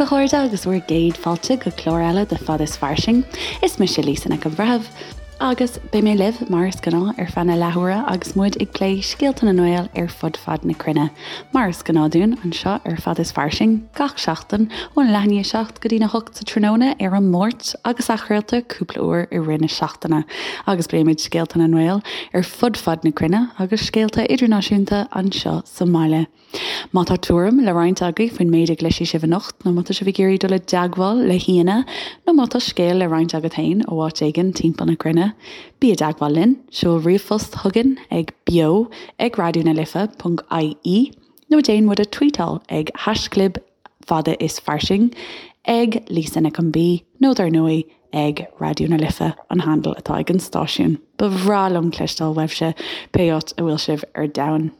a chairde agus bhur gcéad fáilte go clár eile de Fad is Fairsing. Is mise Lisa Nic an Bhreithimh agus beidh mé libh mar is gnáth ar feadh na leathuaire agus muid ag plé scéalta na nGael ar fud fad na cruinne. Mar is gnáth dúinn anseo ar Fad is Fairsing gach seachtain ón leath i ndiaidh 7 go dtína 8 sa tráthnóna ar an Máirt agus athchraolta cúpla uair i rith na seachtaine agus pléimid scéalta na nGael ar fud fad na cruinne agus scéalta idirnáisiúnta anseo sa mbaile. Má tá tuairim le roinnt agaibh faoin méid a gcloisfidh sibh anocht, nó má tá sibh ag iarraidh dul i dteagmháil le haíonna, nó má tá scéal le roinnt agat féin ó áit éigin timpeall na cruinne, bí i dteagmháil linn, seol ríomhphost chugainn ag beo ag raidió na life ponc ie nó déan muid a tweetáil ag haischlib fada is fairsing, ag Lisa Nic an B nó dar ndóigh ag Raidió na Life an handle atá ag an stáisiún. Ba bhreá liom cloisteáil uaibhse pé áit a bhfuil sibh ar domhan.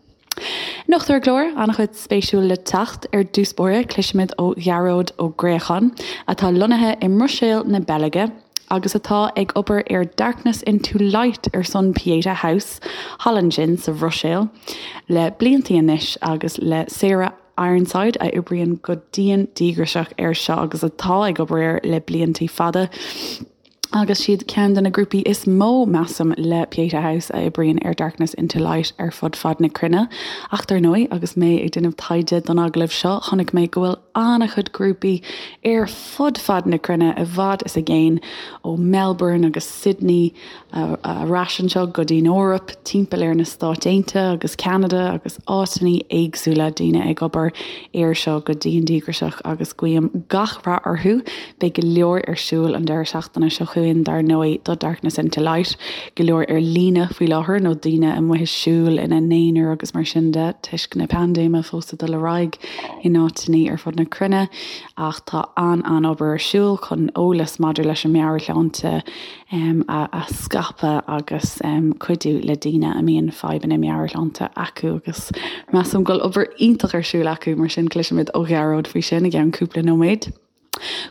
Anocht ar an gclár, an-chuid spéisiúil le teacht. Ar dtús báire, cloisfimid ó Ghearóid Ó Gréacháin, atá lonnaithe i mBruiséil na Beilge agus atá ag obair ar Darkness Into Light ar son Pieta House thall ansin sa Bhruiséil le bliantaí anois agus le Sarah Ironside a oibríonn go dian díograiseach air seo agus atá ag obair air le bliantaí fada. Agus siad ceann de na grúpaí is mó, measaim, le Pieta House a oibríonn ar Darkness Into Light ar fud fad na cruinne. Ach dar ndóigh, agus mé ag déanamh taighde don agallamh seo, chonaic mé go bhfuil an-chuid grúpaí ar fud fad na cruinne, i bhfad is i gcéin, ó Melbourne agus Sydney ar ais anseo go dtí'n Eoraip, timpeall ar na Stáit Aontaithe agus Ceanada agus áiteanna éagsúla, daoine ag obair air seo go dian díograiseach agus guím gach rath orthu. Beidh go leor ar siúl an deireadh seachtaine seo chugainn dar ndóigh do Darkness Into Light, go leor ar líne faoi láthair nó daoine amuigh ag siúl ina n-aonar agus mar sin de toisc na paindéime fós ag dul ar aghaidh in áiteanna ar fud na cruinne ach tá an-an-obair ar siúl chun eolas maidir leis an meabhairshláinte a scaipeadh agus cuidiú le daoine a mbíonn fadhbanna meabhairshláinte acu agus measaim go bhfuil obair iontach ar siúl acu, mar sin cloisfimid ó Ghearóid faoi sin i gceann cúpla nóiméad.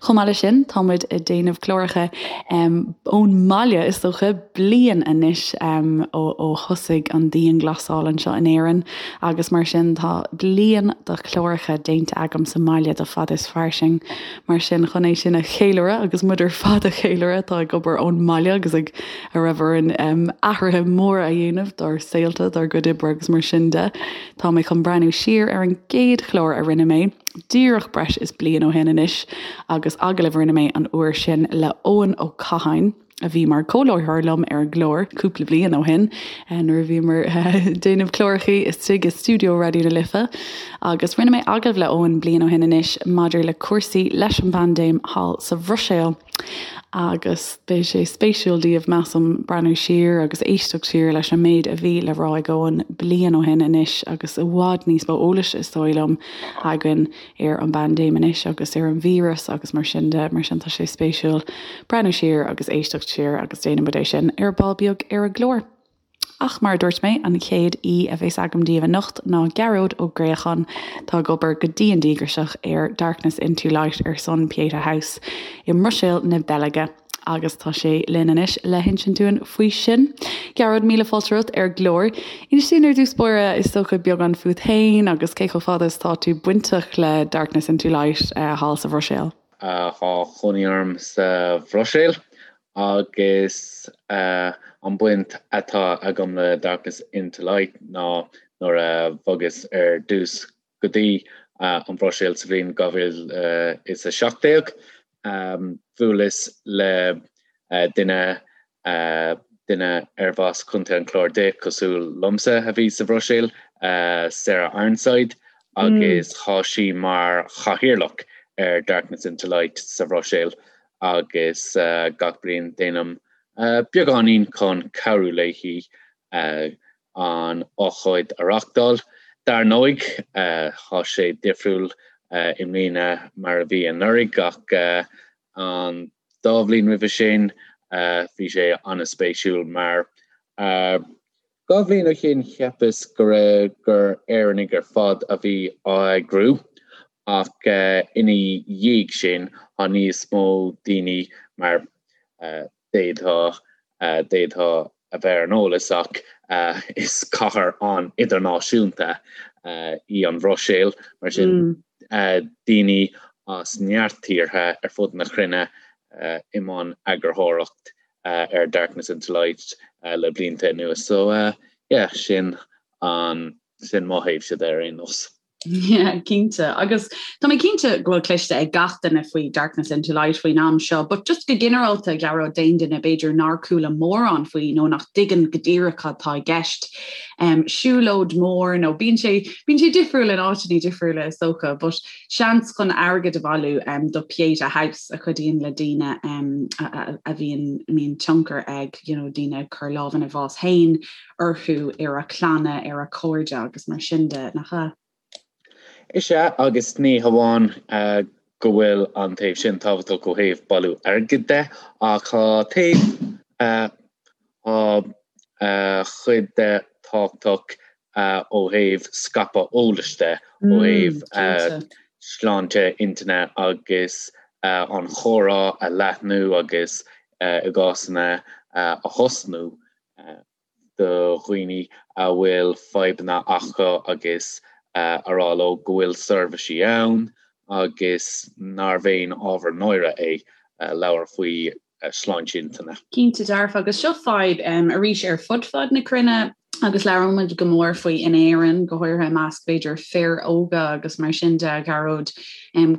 Chomh maith leis sin, tá muid ag déanamh cláracha ón mbaile, is dócha, bliain anois ó thosaigh an dianghlasáil anseo in Éirinn agus mar sin tá bliain de chláracha déanta agam sa mbaile do Fad is Fairsing. Mar sin, chun é sin a cheiliúradh, agus muid ar fad a cheiliúradh atá ag obair ón mbaile agus ag a raibh orainn athruithe móra a dhéanamh dár saolta, dár gcuid oibre agus mar sin de, tá mé chun breathnú siar ar an gcéad chlár a rinne mé, díreach breis is bliain ó shin anois, agus agallamh a rinne mé an uair sin le Eoin Ó Catháin. a bhí mar comhláithreoir liom ar an gclár cúpla bliain ó shin nuair a bhíomar ag déanamh clárachaí istigh i stiúideo Raidió na Life agus rinne mé agallamh le Eoin bliain ó shin anois maidir le cúrsaí leis an bpaindéim thall sa Bhruiséil agus beidh sé spéisiúil daoibh measaim breathnú siar agus éisteacht siar leis an méid a bhí le rá ag Eoin bliain ó shin anois agus i bhfad níos mó eolais is dóigh liom againn ar an bpaindéim anois agus ar an víreas agus mar sin de, mar sin tá sé spéisiúil breathnú siar agus éisteacht siar agus déanfaidh muid é sin ar ball beag ar an gclár. Ach mar a dúirt mé, an chéad aoi a bheas agam daoibh anocht ná Gearóid Ó Gréacháin, atá ag obair go dian díograiseach ar Darkness Into Light ar son Pieta House i mBruiséil na Beilge. Agus tá sé linn anois le hinsint dúinn faoi sin. Gearóid, míle fáilte romhat ar an gclár. Inis dúinn ar dtús báire, is dócha, beagán fút féin agus cé chomh fada is atá tú bainteach le Darkness Into Light thall sa Bhruiséil. Tá cónaí orm sa Bhruiséil agus an baint atá agam le Darkness Into Light ná nuair a bhogas ar dtús go dtí an Bhruiséil sa bhliain 2017. Bhuaileas le duine, duine arbh as Contae an Chláir di, cosúil liomsa, a bhí sa Bhruiséil, Sarah Ironside, agus tá sí mar chathaoirleach ar Darkness Into Light sa Bhruiséil agus gach bliain déanaim beagáinín chun cabhrú léi an ócáid a reáchtáil. Dar ndóigh, tá sé difriúil i mbliana mar a bhí anuraidh ach an dá bhliain roimhe sin bhí sé an-spéisiúil mar dhá bhliain ó shin cheapas go raibh gur Éireannaigh ar fad a bhí á eagrú ach ina dhiaidh sin tá níos mó daoine mar D'fhéadfá, d'fhéadfá a bheith ar an eolas ach is cathair an-idirnáisiúnta í an Bhruiséil, mar sin daoine. as neart tíortha ar fud na cruinne i mbun eagarthóireacht ar Darkness into Light le blianta anuas. So yeah, sin an sin mo thaobhse de ar aon nós. Yeah, cinnte. Agus tá mé cinnte go bhfuil cloiste ag gach duine faoi Darkness into Light faoin am seo, but just go ginearálta a Ghearóid d'aon duine b'fhéidir nár chuala mórán faoi nó nach dtuigeann go díreach cad tá i gceist. Um, siúlóid mór nó bíonn sé bíonn sé difriúil in áiteanna difriúla is dócha, but seans chun airgead a bhailiú um, do Pieta House a chuidíonn le daoine um, a, a, a bhíonn mbíonn tionchar ag you know, daoine ag cur lámh ina bhás féin orthu, ar a clanna, ar a cairde agus mar sin de, nach ea? Is ea, agus ní hamháin go bhfuil an taobh sin tábhachtach ó thaobh bailiú airgid de, ach tá taobh, tá cuid de tábhachtach ó thaobh scaipeadh eolais de, ó thaobh sláinte intinne agus an chomhrá a leathnú agus i gcásanna a thosnú do dhaoine a bhfuil fadhbanna acu agus a rá leo go bhfuil seirbhísí ann agus nárbh aon ábhar náire é labhairt faoi shláinte intinne. Cinnte dearfa, agus seo fadhb arís ar fud fad na cruinne agus labhrann muid go mór faoi in Éirinn, go háirithe i measc b'fhéidir fir óga agus mar sin de, a Ghearóid,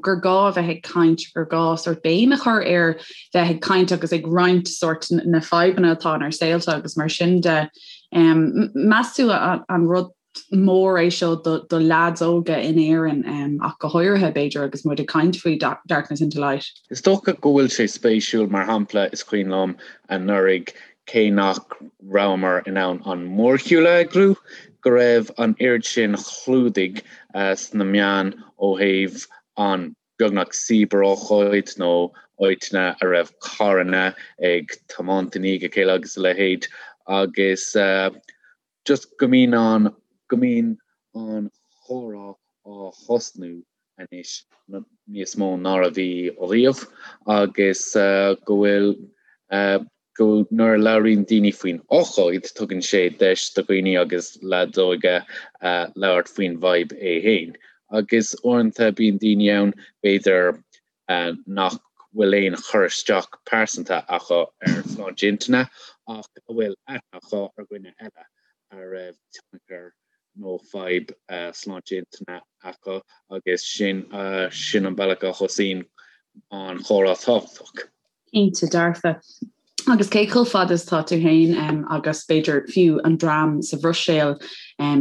gur gá a bheith ag caint, gur gá sórt béim a chur ar bheith ag caint agus ag roinnt sórt na fadhbanna atá inár saolta agus mar sin de. Meas tú an rud mór é seo do, do leaids óga in Éirinn ach go háirithe b'fhéidir agus muid ag caint faoi Darkness into Light? Is dócha go bhfuil sé spéisiúil, mar shampla is cuimhin liom anuraidh cé nach rabhamar in ann an mórshiúl a eagrú, go raibh an oiread sin clúdaigh sna meáin ó thaobh an beagnach cibearócáid nó áiteanna a raibh carranna ag tiomáint i ndiaidh a chéile agus a leithéid agus just go mbíonn an go mbíonn an chomhrá á thosnú anois níos mó ná a bhí riamh agus go bhfuil go nuair a labhraíonn daoine faoin ócáid tugann sé deis do dhaoine agus leaids óga labhairt faoin bhfadhb é féin. Agus uaireanta bíonn daoine ann b'fhéidir nach bhfuil aon chur isteach pearsanta acu ar shláinte intinne ach a bhfuil aithne acu ar dhuine eile a raibh tionchar nó fadhb sláinte intinne acu agus sin sin an bealach a thosaíonn an chomhrá tábhachtach. Cinnte dearfa. Agus cé chomh fada is atá tú féin agus b'fhéidir fiú an dream sa Bhruiséil,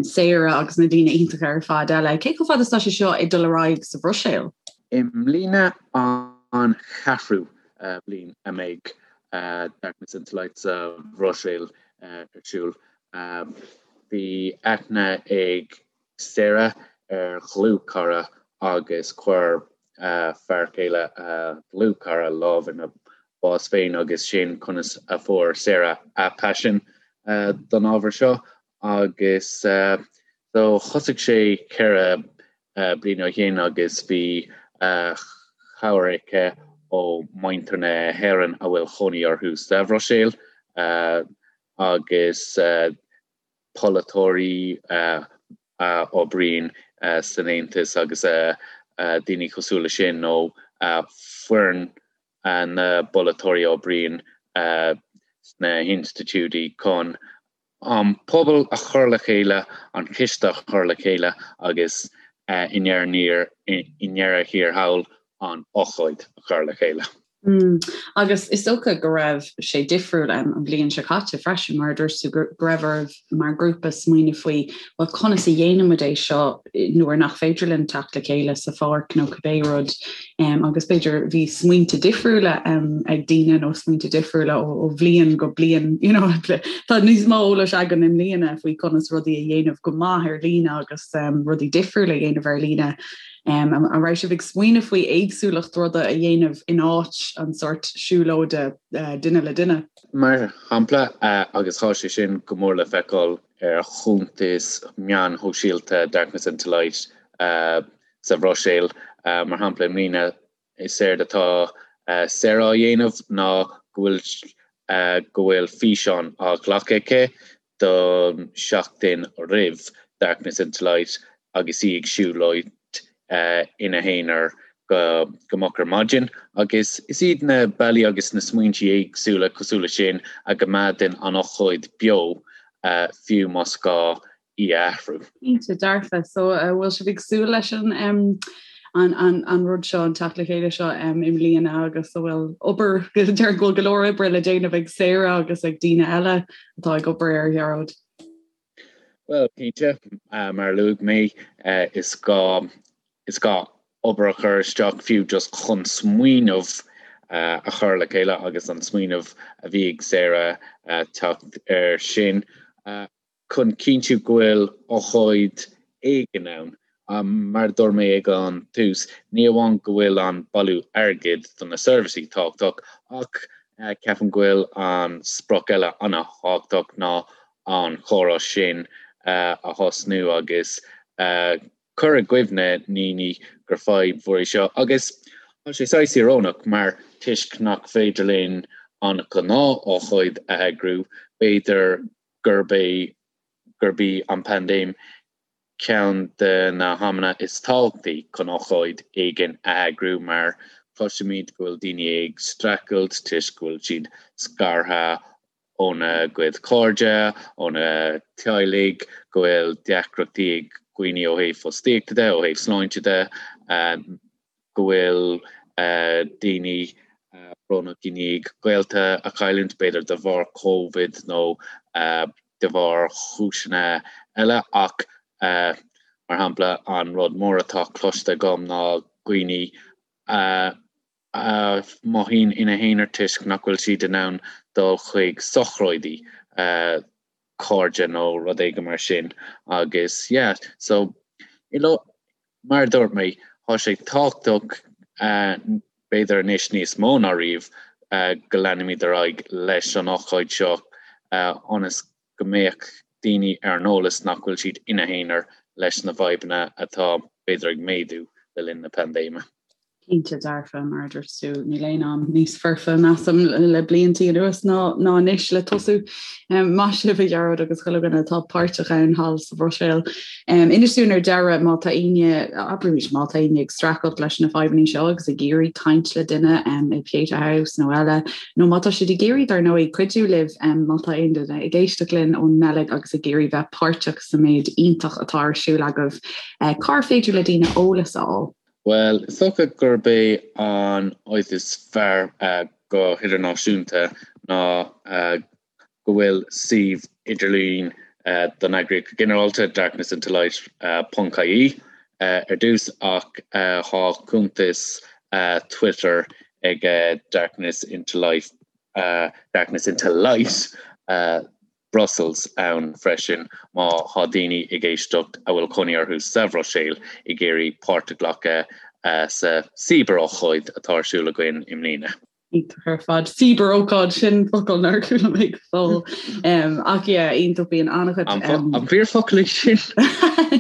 Sarah agus na daoine iontacha ar fad eile, cé chomh fada is atá sé seo ag dul ar aghaidh sa Bhruiséil? I mbliana an cheathrú bliain a mbeidh Darkness into Light sa Bhruiséil ar siúl. Bhí aithne ag Sarah ar dhlúthchara agus chuir fear céile a dlúthchara lámh ina bás féin agus sin conas a fuair Sarah a paisean don ábhar seo agus so thosaigh sé 4 bliana ó shin agus bhí cabhair aici ó mhuintir na hÉireann a bhfuil chónaí orthu sa Bhruiséil agus polaiteoirí a oibríonn san Aontas agus daoine cosúil leis sin nó foireann na bpolaiteoirí a oibríonn sna hinstitiúidí chun an pobal a chur le chéile, an ciste a chur le chéile agus i ndeireadh thiar thall an ócáid a chur le chéile. Agus is dócha go raibh sé difriúil an bhliain seo caite freisin, mar a dúirt tú, go raibh oraibh mar ghrúpa smaoineamh faoi, bhuel, conas a dhéanann muid é seo nuair nach féidir linn teacht le chéile sa pháirc nó cibé rud. Agus b'fhéidir bhí smaointe difriúla ag daoine nó smaointe difriúla ó bhliain go bliain, you know, tá níos mó eolais againn i mbliana faoi conas rudaí a dhéanamh go maith ar líne agus rudaí difriúla a dhéanamh ar líne. An raibh sibh ag smaoineamh faoi éagsúlacht ruda a dhéanamh in áit an sórt siúlóide duine le duine? Mar shampla, agus tá sé sin go mór le feiceáil ar chuntais meáin shóisialta Darkness into Light sa Bhruiséil, mar shampla, i mbliana Is éard atá Sarah á dhéanamh ná go bhfuil go bhfuil físeán á ghlacadh aici don seachtain roimh Darkness into Light agus í ag siúlóid ina haonar. go go moch ar maidin agus is iad na bealaí agus na smaointí éagsúla cosúil leis sin a gcoimeádann an ócáid beo fiú más gá í a athrú. Cinnte dearfa. So an bhfuil sibh ag súil leis an an an an rud seo an teacht le chéile seo i mbliana agus an bhfuil obair déarfainn go bhfuil go leor oibre le déanamh ag Sarah agus ag daoine eile atá ag obair air Ghearóid. Bhuel, cinnte, mar a luaigh mé, is gá, is gá obair a chur isteach fiú just chun smaoineamh a chur le chéile agus an smaoineamh a bhí ag Sarah teacht air sin chun cinntiú go bhfuil ócáid éigin ann. Mar a dúirt mé ag an tús, ní amháin go bhfuil an bailiú airgid do na seirbhísí tábhachtach ach ceapaim go bhfuil an sprioc eile an-thábhachtach ná an chomhrá sin a thosnú agus cur i gcuimhne ndaoine gur fadhb mhór í seo. Agus tá sé saghas íorónach mar toisc nach féidir linn an ghnáth-ócáid a eagrú, b'fhéidir gurb é gurb í an paindéim ceann de na hamanna is tábhachtaí chun ócáid éigin a eagrú mar cloisimid go bhfuil daoine ag streachailt toisc go bhfuil siad scartha óna gcuid cairde, óna teaghlaigh, go bhfuil deacrachtaí ag daoine ó thaobh fostaíochta de, ó thaobh sláinte de, go bhfuil daoine brónach i ndiaidh gaolta a chailliúint, b'fhéidir de bharr Covid nó de bharr chúiseanna eile ach mar shampla an rud mór atá cloiste agam ná daoine a a mothaíonn ina n-aonar toisc nach bhfuil siad in ann dul chuig sochraidí cairde nó rud éigin mar sin agus yeah so mar a dúirt mé tá sé tábhachtach b'fhéidir anois níos mó ná riamh go leanfaimid ar aghaidh leis an ócáid seo ionas go mbeadh daoine ar an eolas nach bhfuil siad ina n-aonar leis na fadhbanna atá b'fhéidir ag méadú le linn na paindéime. Cinnte dearfa, mar a dúirt tú, níl aon am níos foirfe, measaim, le bliantaí anuas ná ná anois le tosú. Maith sibh, a Ghearóid agus chuile dhuine atá páirteach ann thall sa Bhruiséil. Inis dúinn ar deireadh má tá éinne, abraimis, má tá éinne ag streachailt leis na fadhbanna seo agus ag iarraidh caint le duine i Pieta House nó eile, nó má tá siad ag iarraidh, dar ndóigh, cuidiú libh, má tá aon duine ag éisteacht linn ón mBeilg agus ag iarraidh bheith páirteach sa méid iontach atá ar siúl agaibh, cár féidir le daoine eolas a fháil? Bhuel, is dócha gurb é an áit is fearr go hidirnáisiúnta ná go bhfuil suíomh idirlín don eagraíocht go ginearálta, darknessintolight ponc ie, ar dtús ach tá cuntas Twitter ag Darkness Into Life, Darkness Into Light Brussels ann freisin má thá daoine ag éisteacht a bhfuil cónaí orthu sa Bhruiséil ag iarraidh páirt a ghlacadh sa cíbear-ócáid atá ar siúl againn i mbliana. Iontach ar fad. Cíbear-ócáid, sin focal nár chuala mé go fóill. Ach yeah, iontach, bíonn an-chuid. An fíorfhocal é sin?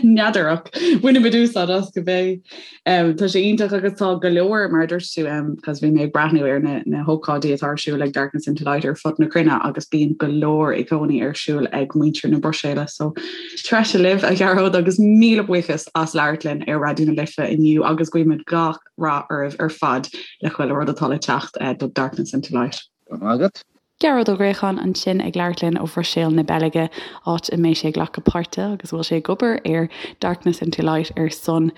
N'fheadar ach bainfimid úsáid as cibé. Tá sé iontach agus tá go leor, mar a dúirt tú, cos bhí mé ag breathnú ar na na hócáidí atá ar siúl ag Darkness into Light ar fud na cruinne agus bíonn go leor i gcónaí ar siúl ag muintir na Bruiséile. So treise libh, a Ghearóid, agus míle buíochas as labhairt linn ar Raidió na Life inniu agus guímid gach rath oraibh ar fad le chuile rud atá le teacht do Darkness into Light. Go raibh maith agat. Gearóid Ó Griacháin ansin ag labhairt linn ó Bhruiséil na Beilge, áit a mbeidh sé ag glacadh páirte agus a bhfuil sé ag obair ar Darkness into Light ar son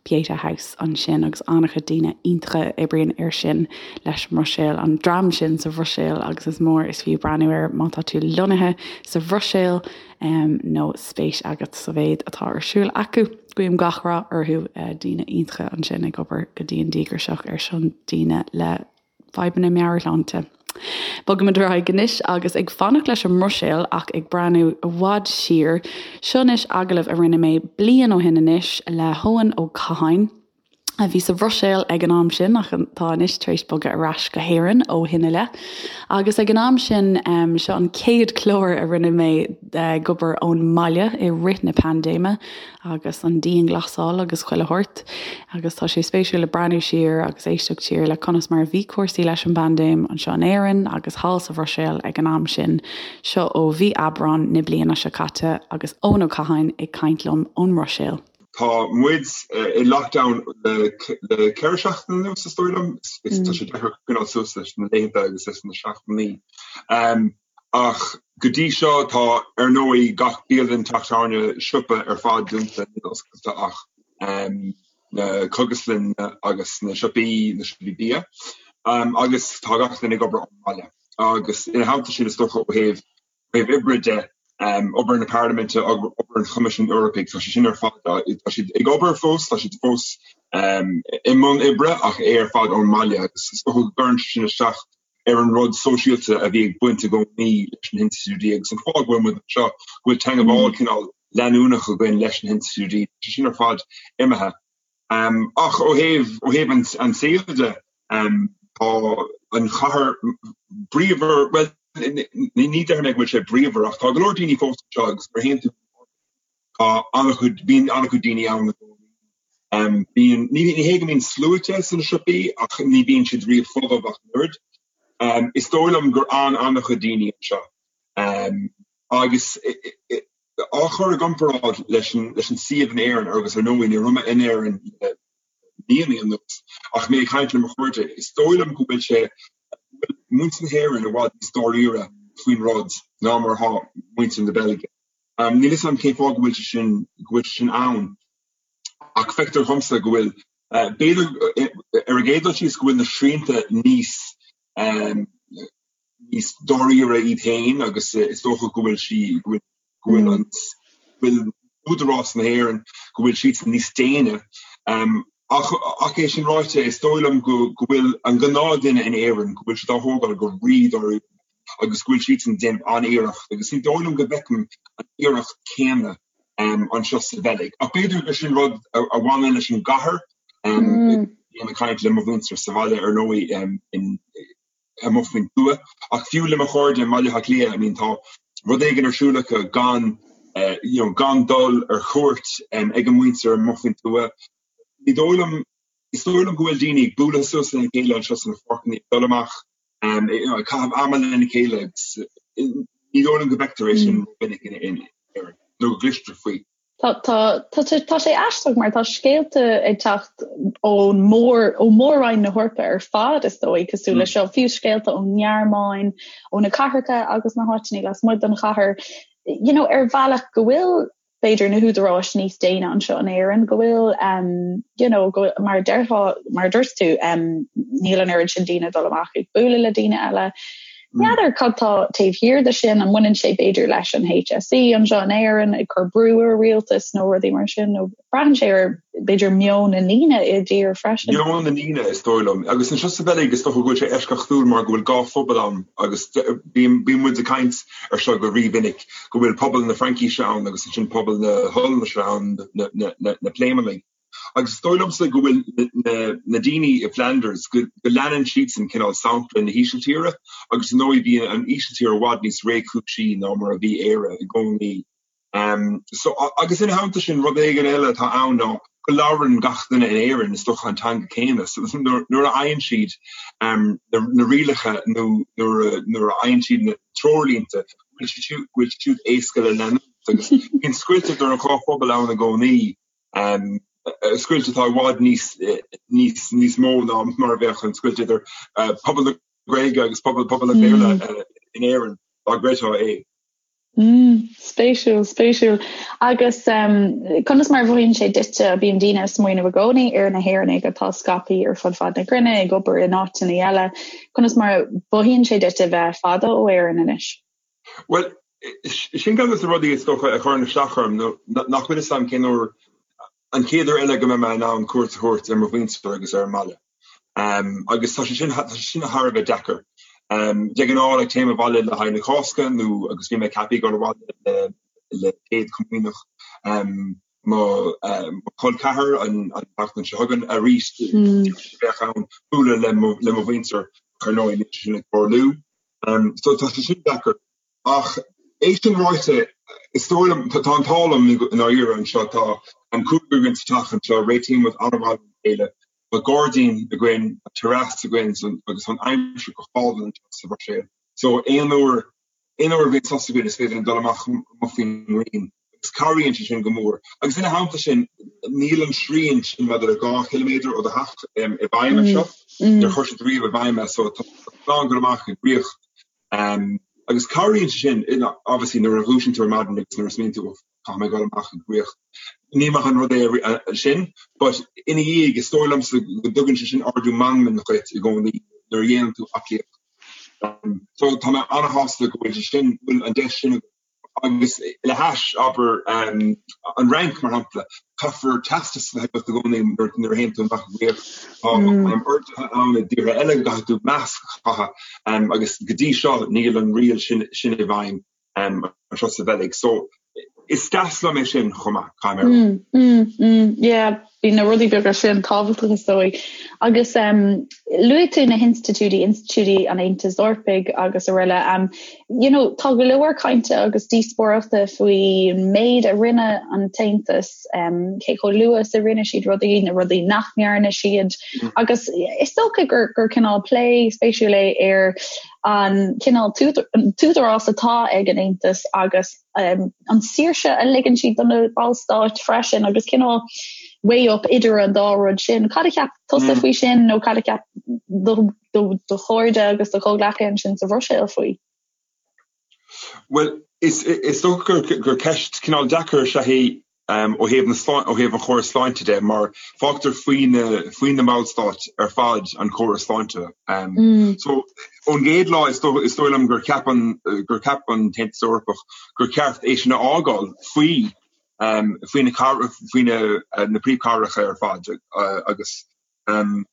Pieta House ansin agus an-chuid daoine iontacha a oibríonn air sin leis an mBruiséil, an dream sin sa Bhruiséil agus is mór is fiú breathnú air má tá tú lonnaithe sa Bhruiséil nó spéis agat sa mhéid atá ar siúl acu. Guím gach rath orthu, daoine iontacha ansin ag obair go dian díograiseach ar son daoine le fadhbanna meabhairshláinte. Bogaimid ar aghaidh anois agus ag fanacht leis an mBruiséil ach ag breathnú i bhfad siar, seo anois agallamh a rinne mé bliain ó shin anois le hEoin Ó Catháin, a bhí sa Bhruiséil ag an am sin ach atá anois tar éis bogadh ar ais go hÉirinn ó shin i leith. Agus ag an am sin, seo an chéad chlár a rinne mé ag obair ón mbaile i rith na paindéime agus an dianghlasáil agus chuile shórt agus tá sé spéisiúil le breathnú siar agus éisteacht siar le conas mar a bhí cúrsaí leis an bpaindéim anseo in Éirinn agus thall sa Bhruiséil ag an am sin. Seo ó mhí Aibreán na bliana seo caite agus Eoin Ó Catháin ag caint liom ón mBruiséil. Tá muid i lockdown le 4 seachtaine anuas, is dóigh liom. Tá sé deacair coinneáil suas leis na laethanta agus leis na seachtainí. Ach go dtí seo tá, ar ndóigh, gach bialann, teach tábhairne, siopa ar fad dúnta, níl oscailte ach na cógaslanna agus na siopaí, na siopaí bia. Agus tá gach duine ag obair ón mbaile. Agus ina theannta sin, is dócha ó thaobh thaobh oibre de, obair na Parlaiminte, obair an Choimisiúin Eorpaigh, tá sé sin ar fad, tá siad ag obair fós, tá siad fós i mbun oibre ach é ar fad ón mbaile agus is dócha go gcuireann sé sin isteach ar an rud sóisialta a bhí ag baint i gcónaí leis na hinstitiúidí agus an fáth go bhfuil muid anseo, go bhfuil teagmháil cineál leanúnach againn leis na hinstitiúidí, tá sé sin ar fad imithe. Ach ó thaobh, ó thaobh an tsaoil de, tá an chathair bríomhar, bhuel, ní déarfaidh mé go bhfuil sé bríomhar ach tá go leor daoine fós anseo agus nuair a théann tú tá an-chuid, bíonn an-chuid daoine ann i gcónaí. Bíonn, ní hé go mbíonn sluaite sna siopaí ach ní bhíonn siad riamh folamh ach an oiread. Is dóigh liom gur fhan an-chuid daoine anseo agus á chur i gcomparáid leis an suíomh in Éirinn agus ar ndóigh ní raibh mé in Éirinn le míonna anuas ach mé ag caint le mo chairde, is dóigh liom go bhfuil sé, go bhfuil muintir na hÉireann i bhfad níos dáiríre faoin rud ná mar atá muintir na Beilge. Níl a fhios agam cén fáth go bhfuil sé sin, go bhfuil sé sin ann ach feictear dhomsa go bhfuil, b'fhéidir ar an gcéad dul síos go bhfuil na srianta níos, níos dáiríre iad féin agus is dócha go bhfuil sí, go bhfuil, go bhfuil an, go bhfuil údarás na hÉireann, go bhfuil siadsan níos déine. Ach, ach é sin ráite, is dóigh liom go, go bhfuil an gnáthduine in Éirinn, go bhfuil siad á thógáil go rí-dáiríre agus go bhfuil siadsan ag déanamh an-iarracht agus ní dóigh liom go bhfeicim an iarracht céanna anseo sa Bheilg. Ach b'fhéidir gur sin rud a bhaineann leis an gcathair. Bím ag caint le mo mhuintir sa bhaile ar ndóigh in, amuigh faoin tuath. Ach fiú le mo chairde i mBaile Átha Cliath, I mean tá rud éigin ar siúl acu gan you know gan dul ar cuairt ag a muintir amuigh faoin tuath. Ní dóigh liom, is dóigh liom go bhfuil daoine ag bualadh suas lena chéile anseo sna páirceanna, ag dul amach you know ag caitheamh ama lena chéile agus ní dóigh liom go bhfeictear é sin rómhinic in Éirinn nó go gcloistear faoi. Tá, tá, tá sé, tá sé aisteach mar tá scéalta ag teacht ón mór, ó mór-roinn na hEorpa ar fad is dóigh, cosúil le seo, fiú scéalta ón nGearmáin, ó na cathracha agus na háiteanna lasmuigh den chathair, you know, ar bhealach go bhfuil b'fhéidir na húdaráis níos déine anseo in Éirinn, go bhfuil, um, you know, go, mar a déarfá, mar a dúirt tú, um, níl an oiread sin daoine ag dul amach ag bualadh le daoine eile. N'fheadar cad tá taobh thiar de sin, an mbaineann sé b'fhéidir leis an HSE anseo in Éirinn ag cur brú ar rialtas nó rudaí mar sin, nó braitheann sé ar b'fhéidir meon na ndaoine i dtír freisin. Meon na ndaoine is dóigh liom. Agus anseo sa Bheilg is dócha go bhfuil sé eisceachtúil mar go bhfuil dhá phobal ann agus bíonn muid ag caint ar seo go rímhinic, go bhfuil pobal na Fraincise ann agus ansin pobal na hOllainnise ann, na Pléimeannaigh. Agus is dóigh liomsa go bhfuil na daoine i Flanders, go leanann siadsan cineál sampla na hÍsiltíre agus ar ndóigh bhí an Ísiltír i bhfad níos réchúisí ná mar a bhí Éire i gcónaí. So, agus ina theannta sin, rud éigin eile atá ann ná go labhrann gach duine in Éirinn is dócha an teanga céanna. So nuair a fhaigheann siad na rialacha nó nuair a fhaigheann siad na treoirlínte, go bhfuil siad siúd éasca le leanúint agus bíonn scoilt idir an dhá phobal ann i gcónaí. Scoilt atá i bhfad níos, níos, níos mó ná mar a bheadh an scoilt idir pobal na Gaeilge agus pobal, pobal an Bhéarla in Éirinn, dá gcreidfeá é. Mm, spéisiúil, spéisiúil. Agus conas mar a mhothaíonn sé duitse, bíonn daoine ag smaoineamh i gcónaí ar na hÉireannaigh atá scaipthe ar fud fad na cruinne, ag obair in áiteanna eile. Conas mar a mhothaíonn sé duit a bheith fada ó Éirinn anois? Bhuel, sin ceann de na rudaí is dócha a chuireann isteach orm, nó nach bhfuil fhios agam cén uair, an chéad uair eile go mbeidh mé in ann cuairt a thabhairt ar mo mhuintir agus ar an mbaile. Agus tá sé sin, tá sé sin thar a bheith deacair. De ghnáth, like, téim abhaile le haghaidh na Cásca nó agus bhí mé ceaptha ag dul abhaile le le Céad Chomaoineach mo chol ceathar an tseachtain seo chugainn arís bheadh ann bualadh le mo le mo mhuintir ar ndóigh níl sé sin ag tarlú. So tá sé sin deacair. Ach é sin ráite, is dóigh liom, tá an t-ádh liom i ndáiríre anseo, tá an cúigear againn sa teach anseo, réitíonn muid an-mhaith lena chéile, tá gairdín againn, tá terrace againn agus tá an aimsir go hálainn anseo sa Bhruiséil. So aon uair, aon uair a bhíonn sos againn is féidir linn dul amach amuigh faoin ngrian. Agus cabhraíonn sé sin go mór. Agus ina theannta sin, níl an srian sin maidir le 2 chiliméadar ó do theach i bhfeidhm anseo. Níor chuir siad riamh i bhfeidhm é, so tá tú in ann dul amach ag rith. Agus cabhraíonn sé sin, obviously, nuair a dhúisíonn tú ar maidin agus nuair a smaoiníonn tú, caithfidh mé dul amach ag rith. Ní maith an rud é sin, but ina dhiaidh, is dóigh liomsa go dtugann sé sin ardú meanman dhuit i gcónaí nuair a dhéanann tú aclaíocht. So tá mé an-shásta go bhfuil sé sin, go bhfuil an deis sin agam. Agus le hais, abair, an Fhrainc, mar shampla, caithfear teastas a bheith agat i gcónaí nuair a théann tú amach ag rith. Tá orduithe ann i dtíortha eile go gcaithfidh tú masc a chaitheamh agus go dtí seo níl an riail sin i bhfeidhm anseo sa Bheilg. So, is deas liom é sin chomh maith, caithfidh mé a rá. Mm, mm, mm, yeah, bíonn na rudaí beaga sin tábhachtach is dóigh. Agus um, luaigh tú na hinstitiúidí, institiúidí an Aontais Eorpaigh agus araile. Um, you know, tá go leor cainte agus díospóireachta faoin méid a rinne an tAontas, um, cé chomh luath is a rinne siad rudaí, na rudaí nach ndearna siad. Mm. Agus is dócha gur, gur cineál plé spéisiúil é ar an cineál t-údarás atá ag an Aontas agus an saoirse a ligeann siad do na ballstáit freisin agus cineál weigh up idir an dá rud sin. Cad a cheap tusa faoi sin nó cad a cheap do chairde agus do chomhghleacaithe ansin sa Bhruiséil faoi? Bhuel, is dócha gur ceist cineál deacair is ea í ó thaobh na ó thaobh an chórais sláinte de mar fágtar faoi na faoi na ballstáit ar fad an córas sláinte. So ón gcéad lá is dóigh is dóigh liom gur cheap an gur cheap an tAontas Eorpach gur cheart é sin a fhágáil faoi faoi na faoi na na príomhchathracha ar fad agus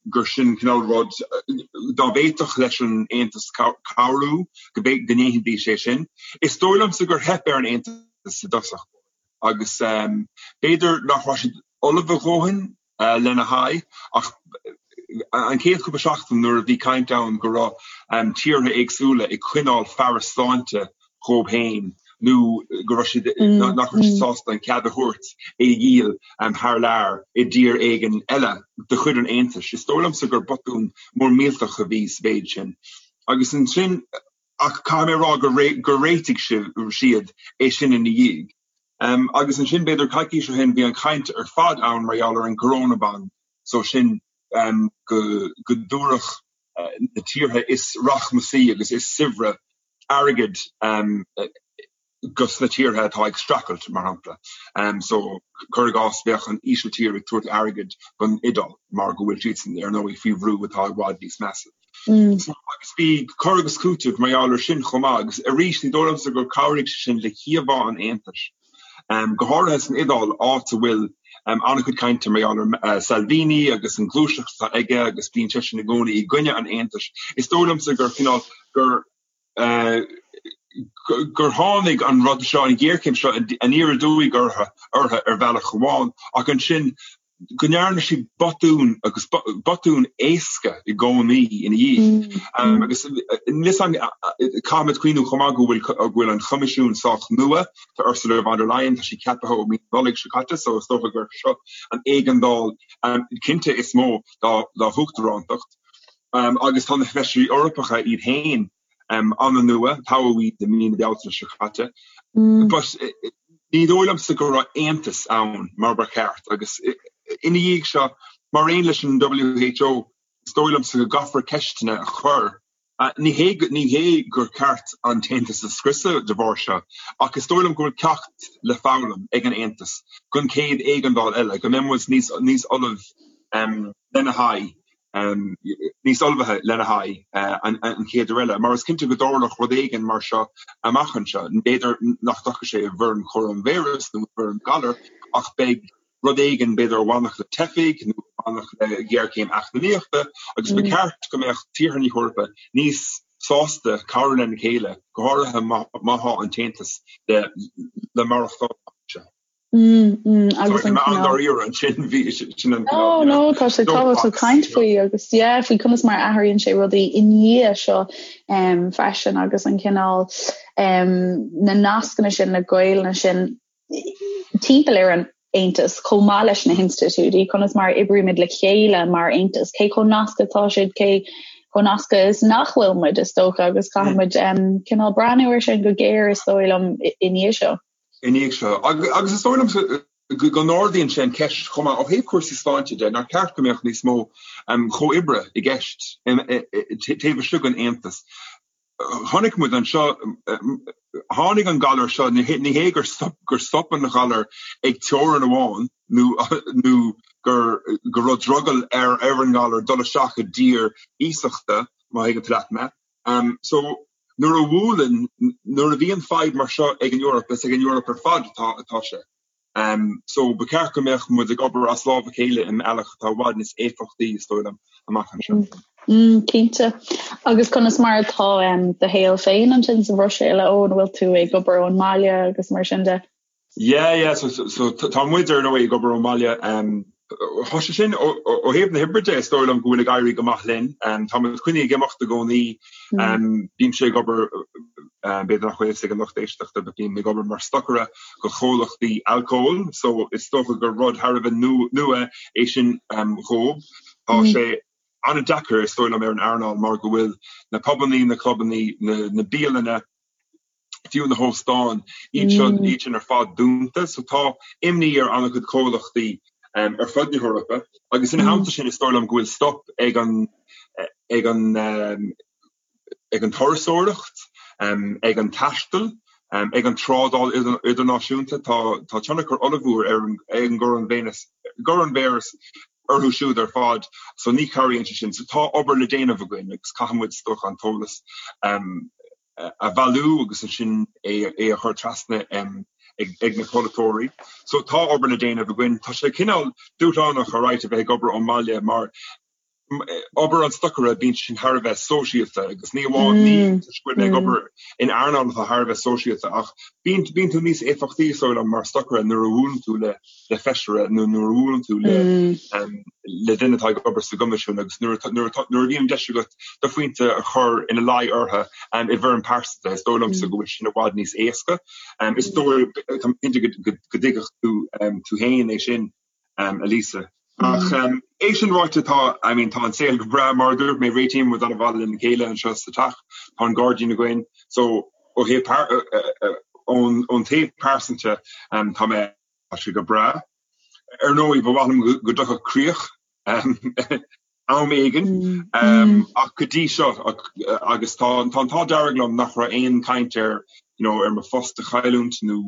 gur sin cineál rud dá bhféadfadh leis an Aontas cabhrú go ndéanfaidís é sin. Is dóigh liomsa gur theip ar an Aontas i dtosach agus b'fhéidir nach raibh siad ullamh a dhóthain lena haghaidh ach an chéad chúpla seachtain nuair a bhí caint ann go raibh tíortha éagsúla ag coinneáil fearas sláinte dhóibh féin nó go raibh siad, nach raibh siad sásta an cead a thabhairt é a dhíol thar lear i dtír éigin eile de chuid an Aontais. Is dóigh liomsa gur botún mór millteach a bhí sa mhéid sin. Agus ansin, ach caithfidh mé a rá gur réitigh siad é sin ina dhiaidh. Agus ansin, b'fhéidir coicís ó shin, bhí an chaint ar fad ann mar gheall ar an gcorónaband, so sin go dtabharfadh na tíortha is rachmasaí agus is saibhre airgead dos na tíortha atá ag streachailt, mar shampla. So, cuir i gcás, bheadh an Ísiltír ag tabhairt airgid don Iodáil mar go bhfuil siadsan, ar ndóigh, faoi bhrú atá i bhfad níos measa. So, agus bhí cur agus cúiteamh mar gheall ar sin chomh maith, agus arís, ní dóigh liomsa gur chabhraigh sé sin le híomhá an Aontais, go háirithe san Iodáil, áit a bhfuil an-chuid cainte mar gheall ar Salvini agus an ghluaiseacht atá aige agus bíonn seisean i gcónaí i gcoinne an Aontais. Is dóigh liomsa gur cineál, gur gur tháinig an rud seo, an ghéarchéim seo aniar aduaidh orthu ar bhealach amháin ach ansin go ndearna siad botún agus botún éasca i gcónaí ina dhiaidh. Agus caithfimid cuimhniú chomh maith go bhfuil go bhfuil an Choimisiún sách nua, tá Ursula von der Leyen, tá sí ceaptha ó mí na Nollag seo caite so is dócha gur seo an éigeandáil cinnte is mó dá huachtarántacht. Agus tá na Feisirí Eorpacha iad féin an-nua, toghadh iad i mí na Bealtaine seo caite. But ní dóigh liomsa go raibh aontas ann mar ba cheart agus ina dhiaidh seo, mar aon leis an WHO, is dóigh liomsa go gcaithfear ceisteanna a chur. Ní hé ní hé gur ceart an tAontas a scriosadh de bharr seo, ach is dóigh liom go bhfuil ceacht le foghlaim ag an Aontas don chéad éigeandáil eile, go mbeidh muid níos níos ullamh lena haghaidh. níos ullmhaithe lena haghaidh an chéad uair eile, mar is cinnte go dtarlódh rud éigin mar seo amach anseo. B'fhéidir nach dtiocfaidh sé i bhfoirm choróinvíreas nó i bhfoirm galar, ach beidh rud éigin, b'fhéidir a bhainfeadh le teifigh nó a bhainfeadh le géarchéim eacnamaíochta, agus ba cheart go mbeadh tíortha na hEorpa níos sásta cabhrú lena chéile, go háirithe má tá an tAontas le maireachtáil amach anseo. Agus an an-dáiríre ansin bhí sin an No, no, tá sé tábhachtach caint faoi agus yeah, faoi conas mar a athraíonn sé rudaí i ndiaidh seo um, freisin agus an cineál um, na nascanna sin, na gaolta sin timpeall ar an Aontas chomh maith leis na hinstitiúidí, conas mar a oibrímid le chéile mar Aontas, cé chomh nasctha atá siad, cé chomh nasctha is nach bhfuil muid is dócha agus caithfidh muid um, cineál breathnú ar sin go géar is dóigh liom i ndiaidh seo. I ndiaidh seo. Agus is dóigh liomsa go n-ardaíonn sé an cheist chomh maith ó thaobh cúrsaí sláinte de, nár cheart go mbeadh níos mó comhoibre i gceist taobh istigh den Aontas. Chonaic muid anseo, tháinig an galar seo, ní hé gur stop an galar ag teorainn amháin nó gur go raibh drogall ar an ngalar dul isteach i dtír iasachta, má thuigeann tú leat mé. So, nuair a bhuaileann, nuair a bhíonn fadhb mar seo ag an Eoraip, is ag an Eoraip ar fad atá atá sé. So, ba cheart go mbeadh muid ag obair as lámh a chéile i mbealach atá i bhfad níos éifeachtaí, is dóigh liom, amach anseo. Cinnte. Agus conas mar atá do shaol féin ansin sa Bhruiséil, a Eoin, an bhfuil tú ag obair ón mbaile agus mar sin de? Yeah, yeah, so, so tá muid ar ndóigh ag obair ón mbaile. Um, tá sé sin ó thaobh na hoibre de, is dóigh liom go bhfuil ag éirí go maith linn. Um, tá muid coinnithe ag imeacht i gcónaí. Mm. Um, bímse ag obair um, b'fhéidir nach bhfuil fhios ag an lucht éisteachta, but bím ag obair mar stocaire do chomhlachtaí alcóil, so is dócha gur rud thar a bheith nua é sin um, dhóibh. Tá mm. sé an-deacair is dóigh liom ar an earnáil mar go bhfuil na pubannaí, na clubannaí, na, na bialanna, fiú na hóstáin, iad seo, iad sin ar fad dúnta. So tá imní ar an-chuid comhlachtaí ar fud na hEorpa agus ina theannta sin is dóigh liom go bhfuil stop ag an ag an ag an turasóireacht, ag an taisteal, ag an trádáil idirnáisiúnta. Tá tá tionchar ollmhór ar an ag an gcoróinvíreas orthu siúd ar fad so ní chabhraíonn sé sin. So tá obair le déanamh againn agus caithfidh muid is dócha an t-eolas a bhailiú agus ansin é a chur trasna ag na polaiteoirí. So tá obair le déanamh againn. Tá sé cineál dúshlánach alright a bheith ag obair ón mbaile mar obair an stocaire bíonn sin thar a bheith sóisialta agus ní amháin ní toisc go bhfuil mé ag obair in earnáil atá thar a bheith sóisialta ach bíonn bíonn tú níos éifeachtaí is dóigh liom mar stocaire nuair a bhuaileann tú le le feisire nó nuair a bhuaileann tú le le duine atá ag obair sa gCoimisiún agus nuair nuair nuair a bhíonn deis agat do phointe a chur ina luí orthu i bhfoirm pearsanta, is dóigh liomsa go bhfuil sin i bhfad níos éasca. Is dóigh tá mé cinnte go dtuigfeadh tú tú féin é sin, a Lisa. Ach é sin ráite tá I mean tá an saol go breá mar a dúirt mé réitíonn muid an-mhaith lena chéile anseo sa teach, tá an gairdín againn so ó thaobh ón taobh pearsanta tá mé tá sé go breá. Ar ndóigh ba mhaith liom go dtiocfadh críoch am éigin ach go dtí seo agus tá an t-ádh dearg liom nach raibh aon chaint ar you know ar mo phost a chailliúint nó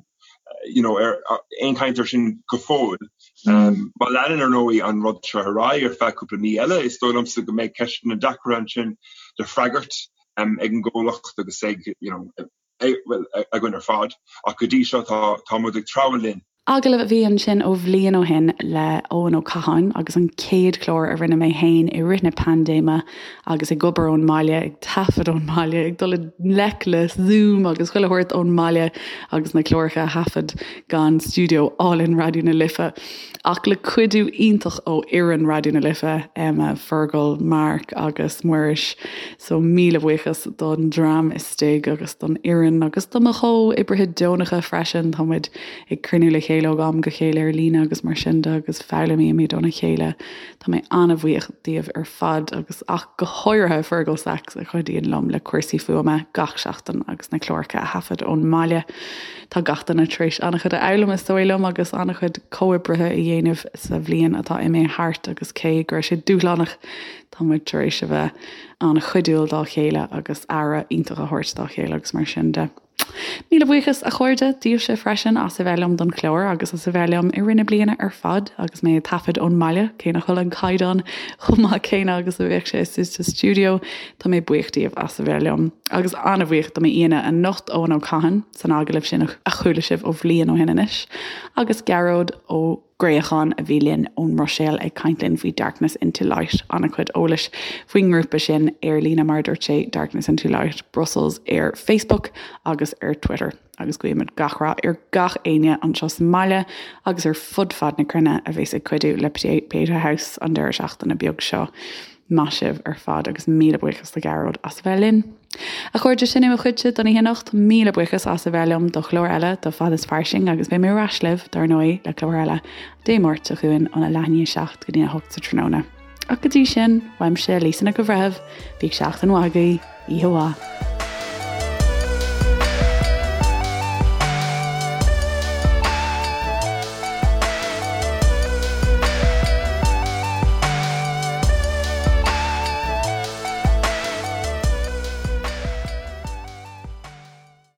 you know ar aon chaint ar sin go fóill. Má leanann ar ndóigh an rud seo ar aghaidh ar feadh cúpla mí eile is dóigh liomsa go mbeidh ceisteanna deacra ansin le freagairt ag an gcomhlacht agus ag you know bhuel againn ar fad ach go dtí seo tá tá muid ag treabhadh linn. Agallamh a bhí ansin ó bhliain ó shin le Eoin Ó Catháin agus an chéad chlár a rinne mé féin i rith na paindéime agus ag obair ón mbaile, ag taifead ón mbaile, ag dul i ngleic le Zoom agus chuile shórt ón mbaile agus na cláracha a thaifead gan stiúideo álainn Raidió na Life. Ach le cuidiú iontach ó fhoireann Raidió na Life, Emma, Fergal, Mark agus Muiris. So míle buíochas don dream istigh agus don fhoireann agus do mo chomhoibrithe deonacha freisin. Tá muid ag cruinniú le chéile ó am go chéile ar líne agus mar sin de agus foghlaimímid óna chéile. Tá mé an-bhuíoch díobh ar fad agus ach go háirithe Fergal Sachs a chuidíonn liom le cúrsaí fuaime gach seachtain agus na cláracha a thaifead ón mbaile. Tá gach duine tar éis an-chuid a fhoghlaim is dóigh liom agus an-chuid comhoibrithe a dhéanamh sa bhliain atá imithe thart agus cé go raibh sé dúshlánach tá muid tar éis a bheith an-chuidiúil dá chéile agus aire iontach a thabhairt dá chéile agus mar sin de. Míle buíochas, a chairde, daoibhse freisin as a bheith liom don chlár agus as a bheith liom i rith na bliana ar fad agus mé ag taifead ón mbaile, cé nach bhfuil an caighdeán chomh maith céanna agus a bheadh sé istigh sa stiúideo, tá mé buíoch díobh as a bheith liom. Agus an-bhuíoch do m'aíonna anocht, Eoin Ó Catháin, san agallamh sin a chuala sibh ó bhliain ó shin anois, agus Gearóid Ó Gréacháin a bhí linn ón mBruiséil ag caint linn faoi Darkness Into Light, an-chuid eolais faoin ngrúpa sin ar líne mar a dúirt sé, Darkness Into Light Brussels ar Facebook agus ar Twitter. Agus guímid gach rath ar gach éinne anseo sa mbaile agus ar fud fad na cruinne a bhéas ag cuidiú le Pieta House an deireadh seachtaine beag seo. Maith sibh ar fad agus míle buíochas do Ghearóid as a bheith linn. A chairde, sin é mo chuidse don oíche anocht. Míle buíochas as a bheith liom do chlár eile de Fad is Fairsing agus beidh mé ar ais libh, dar ndóigh, le clár eile Dé Máirt seo chugainn óna leath i ndiaidh a 7 go dtí a 8 sa tráthnóna. Ach go dtí sin, uaimse, Lisa Nic an Bhreithimh, bíodh seachtain mhaith agaibh, oíche mhaith.